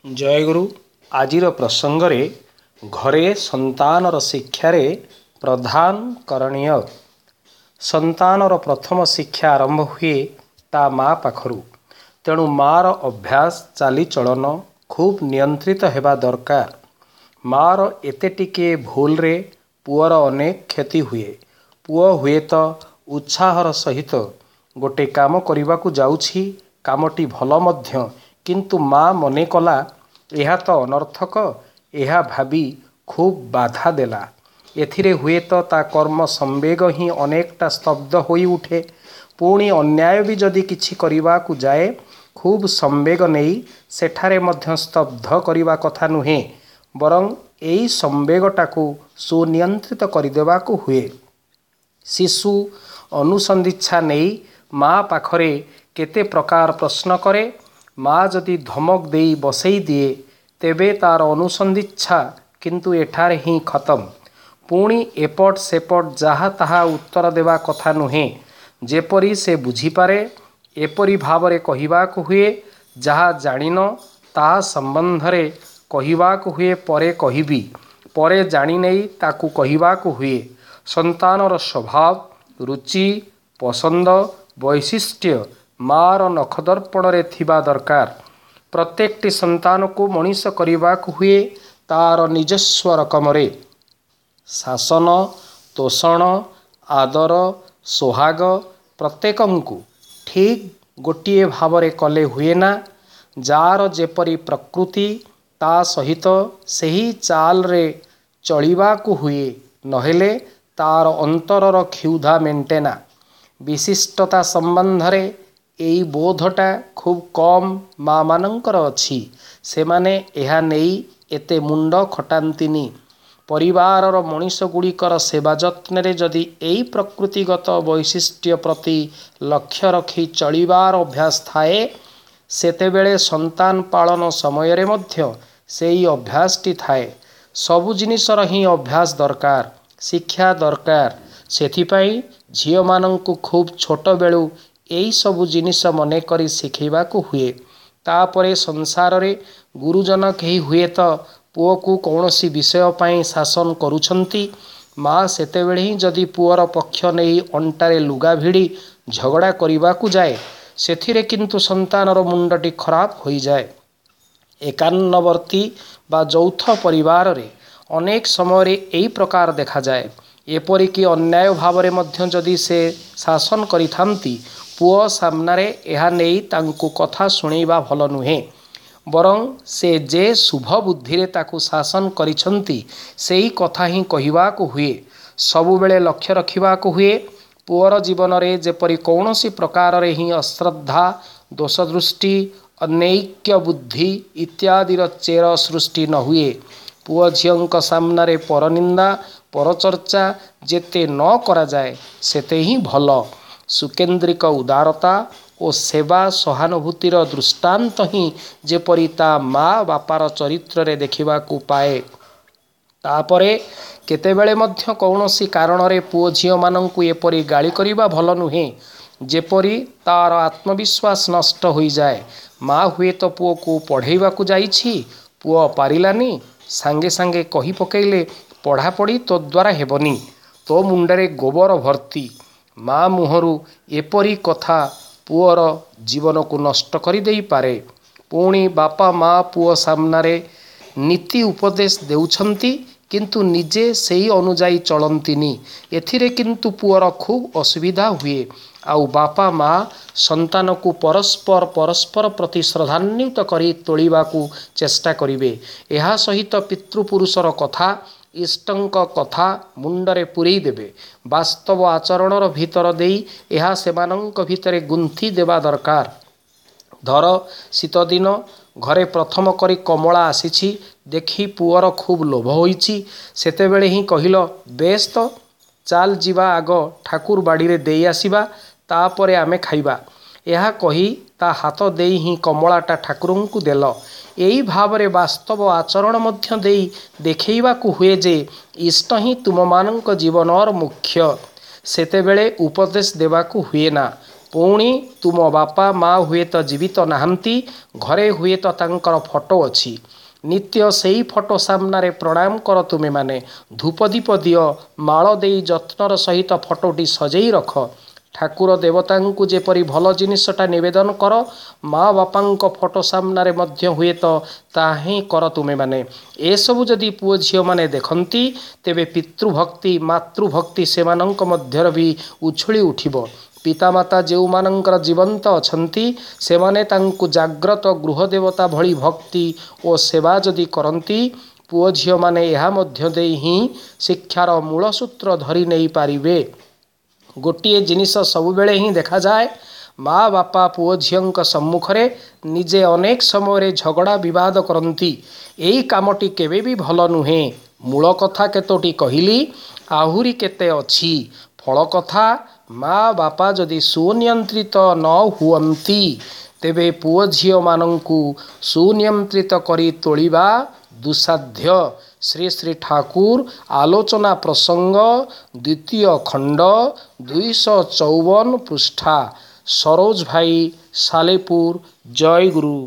ଜୟଗୁରୁ। ଆଜିର ପ୍ରସଙ୍ଗରେ ଘରେ ସନ୍ତାନର ଶିକ୍ଷାରେ ପ୍ରଧାନ କରଣୀୟ। ସନ୍ତାନର ପ୍ରଥମ ଶିକ୍ଷା ଆରମ୍ଭ ହୁଏ ତା ମା ପାଖରୁ। ତେଣୁ ମାର ଅଭ୍ୟାସ, ଚାଲିଚଳନ ଖୁବ୍ ନିୟନ୍ତ୍ରିତ ହେବା ଦରକାର। ମାର ଏତେ ଟିକିଏ ଭୁଲରେ ପୁଅର ଅନେକ କ୍ଷତି ହୁଏ। ପୁଅ ହୁଏତ ଉତ୍ସାହର ସହିତ ଗୋଟେ କାମ କରିବାକୁ ଯାଉଛି, କାମଟି ଭଲ ମଧ୍ୟ, କିନ୍ତୁ ମା ମନେ କଲା ଏହା ତ ଅନର୍ଥକ, ଏହା ଭାବି ଖୁବ୍ ବାଧା ଦେଲା। ଏଥିରେ ହୁଏତ ତା କର୍ମ ସମ୍ବେଗ ହିଁ ଅନେକଟା ସ୍ତବ୍ଧ ହୋଇଉଠେ। ପୁଣି ଅନ୍ୟାୟ ବି ଯଦି କିଛି କରିବାକୁ ଯାଏ, ଖୁବ୍ ସମ୍ବେଗ ନେଇ ସେଠାରେ ମଧ୍ୟ ସ୍ତବ୍ଧ କରିବା କଥା ନୁହେଁ, ବରଂ ଏଇ ସମ୍ବେଗଟାକୁ ସୁନିୟନ୍ତ୍ରିତ କରିଦେବାକୁ ହୁଏ। ଶିଶୁ ଅନୁସନ୍ଧିତ୍ସା ନେଇ ମା ପାଖରେ କେତେ ପ୍ରକାର ପ୍ରଶ୍ନ କରେ। ମା ଯଦି ଧମକ ଦେଇ ବସେଇ ଦିଏ, ତେବେ ତାର ଅନୁସନ୍ଧିତ୍ସା କିନ୍ତୁ ଏଠାରେ ହିଁ ଖତମ। ପୁଣି ଏପଟ ସେପଟ ଯାହା ତାହା ଉତ୍ତର ଦେବା କଥା ନୁହେଁ। ଯେପରି ସେ ବୁଝିପାରେ ଏପରି ଭାବରେ କହିବାକୁ ହୁଏ। ଯାହା ଜାଣିନ ତାହା ସମ୍ବନ୍ଧରେ କହିବାକୁ ହୁଏ ପରେ କହିବି, ପରେ ଜାଣିନେଇ ତାକୁ କହିବାକୁ ହୁଏ। ସନ୍ତାନର ସ୍ୱଭାବ, ରୁଚି, ପସନ୍ଦ, ବୈଶିଷ୍ଟ୍ୟ ମାର ନଖଦର୍ପଣରେ ଥିବା ଦରକାର। ପ୍ରତ୍ୟେକଟି ସନ୍ତାନକୁ ମଣିଷ କରିବାକୁ ହୁଏ ତାର ନିଜସ୍ୱ ରକମରେ। ଶାସନ, ତୋଷଣ, ଆଦର, ସୋହାଗ ପ୍ରତ୍ୟେକଙ୍କୁ ଠିକ୍ ଗୋଟିଏ ଭାବରେ କଲେ ହୁଏନା। ଯାର ଯେପରି ପ୍ରକୃତି ତା ସହିତ ସେହି ଚାଲରେ ଚଳିବାକୁ ହୁଏ, ନହେଲେ ତାର ଅନ୍ତରର କ୍ଷୁଧା ମେଣ୍ଟେନା। ବିଶିଷ୍ଟତା ସମ୍ବନ୍ଧରେ ଏଇ ବୋଧଟା ଖୁବ୍ କମ୍ ମା'ମାନଙ୍କର ଅଛି। ସେମାନେ ଏହା ନେଇ ଏତେ ମୁଣ୍ଡ ଖଟାନ୍ତିନି। ପରିବାରର ମଣିଷଗୁଡ଼ିକର ସେବା ଯତ୍ନରେ ଯଦି ଏଇ ପ୍ରକୃତିଗତ ବୈଶିଷ୍ଟ୍ୟ ପ୍ରତି ଲକ୍ଷ୍ୟ ରଖି ଚଳିବାର ଅଭ୍ୟାସ ଥାଏ, ସେତେବେଳେ ସନ୍ତାନ ପାଳନ ସମୟରେ ମଧ୍ୟ ସେଇ ଅଭ୍ୟାସଟି ଥାଏ। ସବୁ ଜିନିଷର ହିଁ ଅଭ୍ୟାସ ଦରକାର, ଶିକ୍ଷା ଦରକାର। ସେଥିପାଇଁ ଝିଅମାନଙ୍କୁ ଖୁବ୍ ଛୋଟବେଳୁ ଏଇସବୁ ଜିନିଷ ମନେକରି ଶିଖେଇବାକୁ ହୁଏ। ତାପରେ ସଂସାରରେ ଗୁରୁଜନ କେହି ହୁଏତ ପୁଅକୁ କୌଣସି ବିଷୟ ପାଇଁ ଶାସନ କରୁଛନ୍ତି, ମା ସେତେବେଳେ ହିଁ ଯଦି ପୁଅର ପକ୍ଷ ନେଇ ଅଣ୍ଟାରେ ଲୁଗା ଭିଡ଼ି ଝଗଡ଼ା କରିବାକୁ ଯାଏ, ସେଥିରେ କିନ୍ତୁ ସନ୍ତାନର ମୁଣ୍ଡଟି ଖରାପ ହୋଇଯାଏ। ଏକାନ୍ନବର୍ତ୍ତୀ ବା ଯୌଥ ପରିବାରରେ ଅନେକ ସମୟରେ ଏଇ ପ୍ରକାର ଦେଖାଯାଏ। ଏପରିକି ଅନ୍ୟାୟ ଭାବରେ ମଧ୍ୟ ଯଦି ସେ ଶାସନ କରିଥାନ୍ତି, ପୁଅ ସାମ୍ନାରେ ଏହା ନେଇ ତାଙ୍କୁ କଥା ଶୁଣେଇବା ଭଲ ନୁହେଁ। ବରଂ ସେ ଯେ ଶୁଭ ବୁଦ୍ଧିରେ ତାକୁ ଶାସନ କରିଛନ୍ତି ସେଇ କଥା ହିଁ କହିବାକୁ ହୁଏ। ସବୁବେଳେ ଲକ୍ଷ୍ୟ ରଖିବାକୁ ହୁଏ ପୁଅର ଜୀବନରେ ଯେପରି କୌଣସି ପ୍ରକାରରେ ହିଁ ଅଶ୍ରଦ୍ଧା, ଦୋଷଦୃଷ୍ଟି, ଅନୈକ୍ୟ ବୁଦ୍ଧି ଇତ୍ୟାଦିର ଚେର ସୃଷ୍ଟି ନ ହୁଏ। ପୁଅ ଝିଅଙ୍କ ସାମ୍ନାରେ ପରନିନ୍ଦା, ପରଚର୍ଚ୍ଚା ଯେତେ ନ କରାଯାଏ ସେତେ ହିଁ ଭଲ। ସୁକେନ୍ଦ୍ରିକ ଉଦାରତା ଓ ସେବା ସହାନୁଭୂତିର ଦୃଷ୍ଟାନ୍ତ ହିଁ ଯେପରି ତା ମା ବାପାର ଚରିତ୍ରରେ ଦେଖିବାକୁ ପାଏ। ତାପରେ କେତେବେଳେ ମଧ୍ୟ କୌଣସି କାରଣରେ ପୁଅ ଝିଅମାନଙ୍କୁ ଏପରି ଗାଳି କରିବା ଭଲ ନୁହେଁ ଯେପରି ତାର ଆତ୍ମବିଶ୍ୱାସ ନଷ୍ଟ ହୋଇଯାଏ। ମା ହୁଏତ ପୁଅକୁ ପଢ଼େଇବାକୁ ଯାଇଛି, ପୁଅ ପାରିଲାନି, ସାଙ୍ଗେ ସାଙ୍ଗେ କହି ପକେଇଲେ ପଢ଼ାପଢ଼ି ତୋ ଦ୍ୱାରା ହେବନି, ତୋ ମୁଣ୍ଡରେ ଗୋବର ଭର୍ତ୍ତି। ମା ମୁହଁରୁ ଏପରି କଥା ପୁଅର ଜୀବନକୁ ନଷ୍ଟ କରିଦେଇପାରେ। ପୁଣି ବାପା ମା ପୁଅ ସାମ୍ନାରେ ନୀତି ଉପଦେଶ ଦେଉଛନ୍ତି, କିନ୍ତୁ ନିଜେ ସେଇ ଅନୁଯାୟୀ ଚଳନ୍ତିନି, ଏଥିରେ କିନ୍ତୁ ପୁଅର ଖୁବ୍ ଅସୁବିଧା ହୁଏ। ଆଉ ବାପା ମା ସନ୍ତାନକୁ ପରସ୍ପର ପରସ୍ପର ପ୍ରତି ଶ୍ରଦ୍ଧାନ୍ୱିତ କରି ତୋଳିବାକୁ ଚେଷ୍ଟା କରିବେ। ଏହା ସହିତ ପିତୃପୁରୁଷର କଥା, ଇଷ୍ଟଙ୍କ କଥା ମୁଣ୍ଡରେ ପୂରେଇ ଦେବେ। ବାସ୍ତବ ଆଚରଣର ଭିତର ଦେଇ ଏହା ସେମାନଙ୍କ ଭିତରେ ଗୁନ୍ଥି ଦେବା ଦରକାର। ଧର ଶୀତଦିନ, ଘରେ ପ୍ରଥମ କରି କମଳା ଆସିଛି, ଦେଖି ପୁଅର ଖୁବ୍ ଲୋଭ ହୋଇଛି। ସେତେବେଳେ ହିଁ କହିଲ, ବେଶ ତ, ଚାଲ ଯିବା ଆଗ ଠାକୁର ବାଡ଼ିରେ ଦେଇ ଆସିବା, ତାପରେ ଆମେ ଖାଇବା। ଏହା କହି ତା ହାତ ଦେଇ ହିଁ କମଳାଟା ଠାକୁରଙ୍କୁ ଦେଲ। ଏଇ ଭାବରେ ବାସ୍ତବ ଆଚରଣ ମଧ୍ୟ ଦେଇ ଦେଖେଇବାକୁ ହୁଏ ଯେ ଇଷ୍ଟ ହିଁ ତୁମମାନଙ୍କ ଜୀବନର ମୁଖ୍ୟ। ସେତେବେଳେ ଉପଦେଶ ଦେବାକୁ ହୁଏନା। ପୁଣି ତୁମ ବାପା ମା ହୁଏତ ଜୀବିତ ନାହାନ୍ତି, ଘରେ ହୁଏତ ତାଙ୍କର ଫଟୋ ଅଛି। ନିତ୍ୟ ସେଇ ଫଟୋ ସାମ୍ନାରେ ପ୍ରଣାମ କର ତୁମେମାନେ, ଧୂପଦୀପ ଦିଅ, ମାଳ ଦେଇ ଯତ୍ନର ସହିତ ଫଟୋଟି ସଜେଇ ରଖ। ଠାକୁର ଦେବତାଙ୍କୁ ଯେପରି ଭଲ ଜିନିଷଟା ନିବେଦନ କର, ମା ବାପାଙ୍କ ଫଟୋ ସାମ୍ନାରେ ମଧ୍ୟ ହୁଏତ ତାହା ହିଁ କର ତୁମେମାନେ। ଏସବୁ ଯଦି ପୁଅ ଝିଅମାନେ ଦେଖନ୍ତି, ତେବେ ପିତୃଭକ୍ତି ମାତୃଭକ୍ତି ସେମାନଙ୍କ ମଧ୍ୟରେ ବି ଉଛୁଳି ଉଠିବ। ପିତାମାତା ଯେଉଁମାନଙ୍କର ଜୀବନ୍ତ ଅଛନ୍ତି, ସେମାନେ ତାଙ୍କୁ ଜାଗ୍ରତ ଗୃହଦେବତା ଭଳି ଭକ୍ତି ଓ ସେବା ଯଦି କରନ୍ତି, ପୁଅ ଝିଅମାନେ ଏହା ମଧ୍ୟ ଦେଇ ହିଁ ଶିକ୍ଷାର ମୂଳ ସୂତ୍ର ଧରି ନେଇପାରିବେ। ଗୋଟିଏ ଜିନିଷ ସବୁବେଳେ ହିଁ ଦେଖାଯାଏ, ମା ବାପା ପୁଅ ଝିଅଙ୍କ ସମ୍ମୁଖରେ ନିଜେ ଅନେକ ସମୟରେ ଝଗଡ଼ା ବିବାଦ କରନ୍ତି। ଏଇ କାମଟି କେବେ ବି ଭଲ ନୁହେଁ। ମୂଳ କଥା କେତୋଟି କହିଲି, ଆହୁରି କେତେ ଅଛି। ଫଳ କଥା, ମା ବାପା ଯଦି ସୁନିୟନ୍ତ୍ରିତ ନ ହୁଅନ୍ତି, ତେବେ ପୁଅ ଝିଅମାନଙ୍କୁ ସୁନିୟନ୍ତ୍ରିତ କରି ତୋଳିବା ଦୁଃସାଧ୍ୟ। ଶ୍ରୀ ଶ୍ରୀ ଠାକୁର ଆଲୋଚନା ପ୍ରସଙ୍ଗ, ଦ୍ୱିତୀୟ ଖଣ୍ଡ, 254 ପୃଷ୍ଠା। ସରୋଜ ଭାଇ, ସାଲେପୁର। ଜୟ ଗୁରୁ।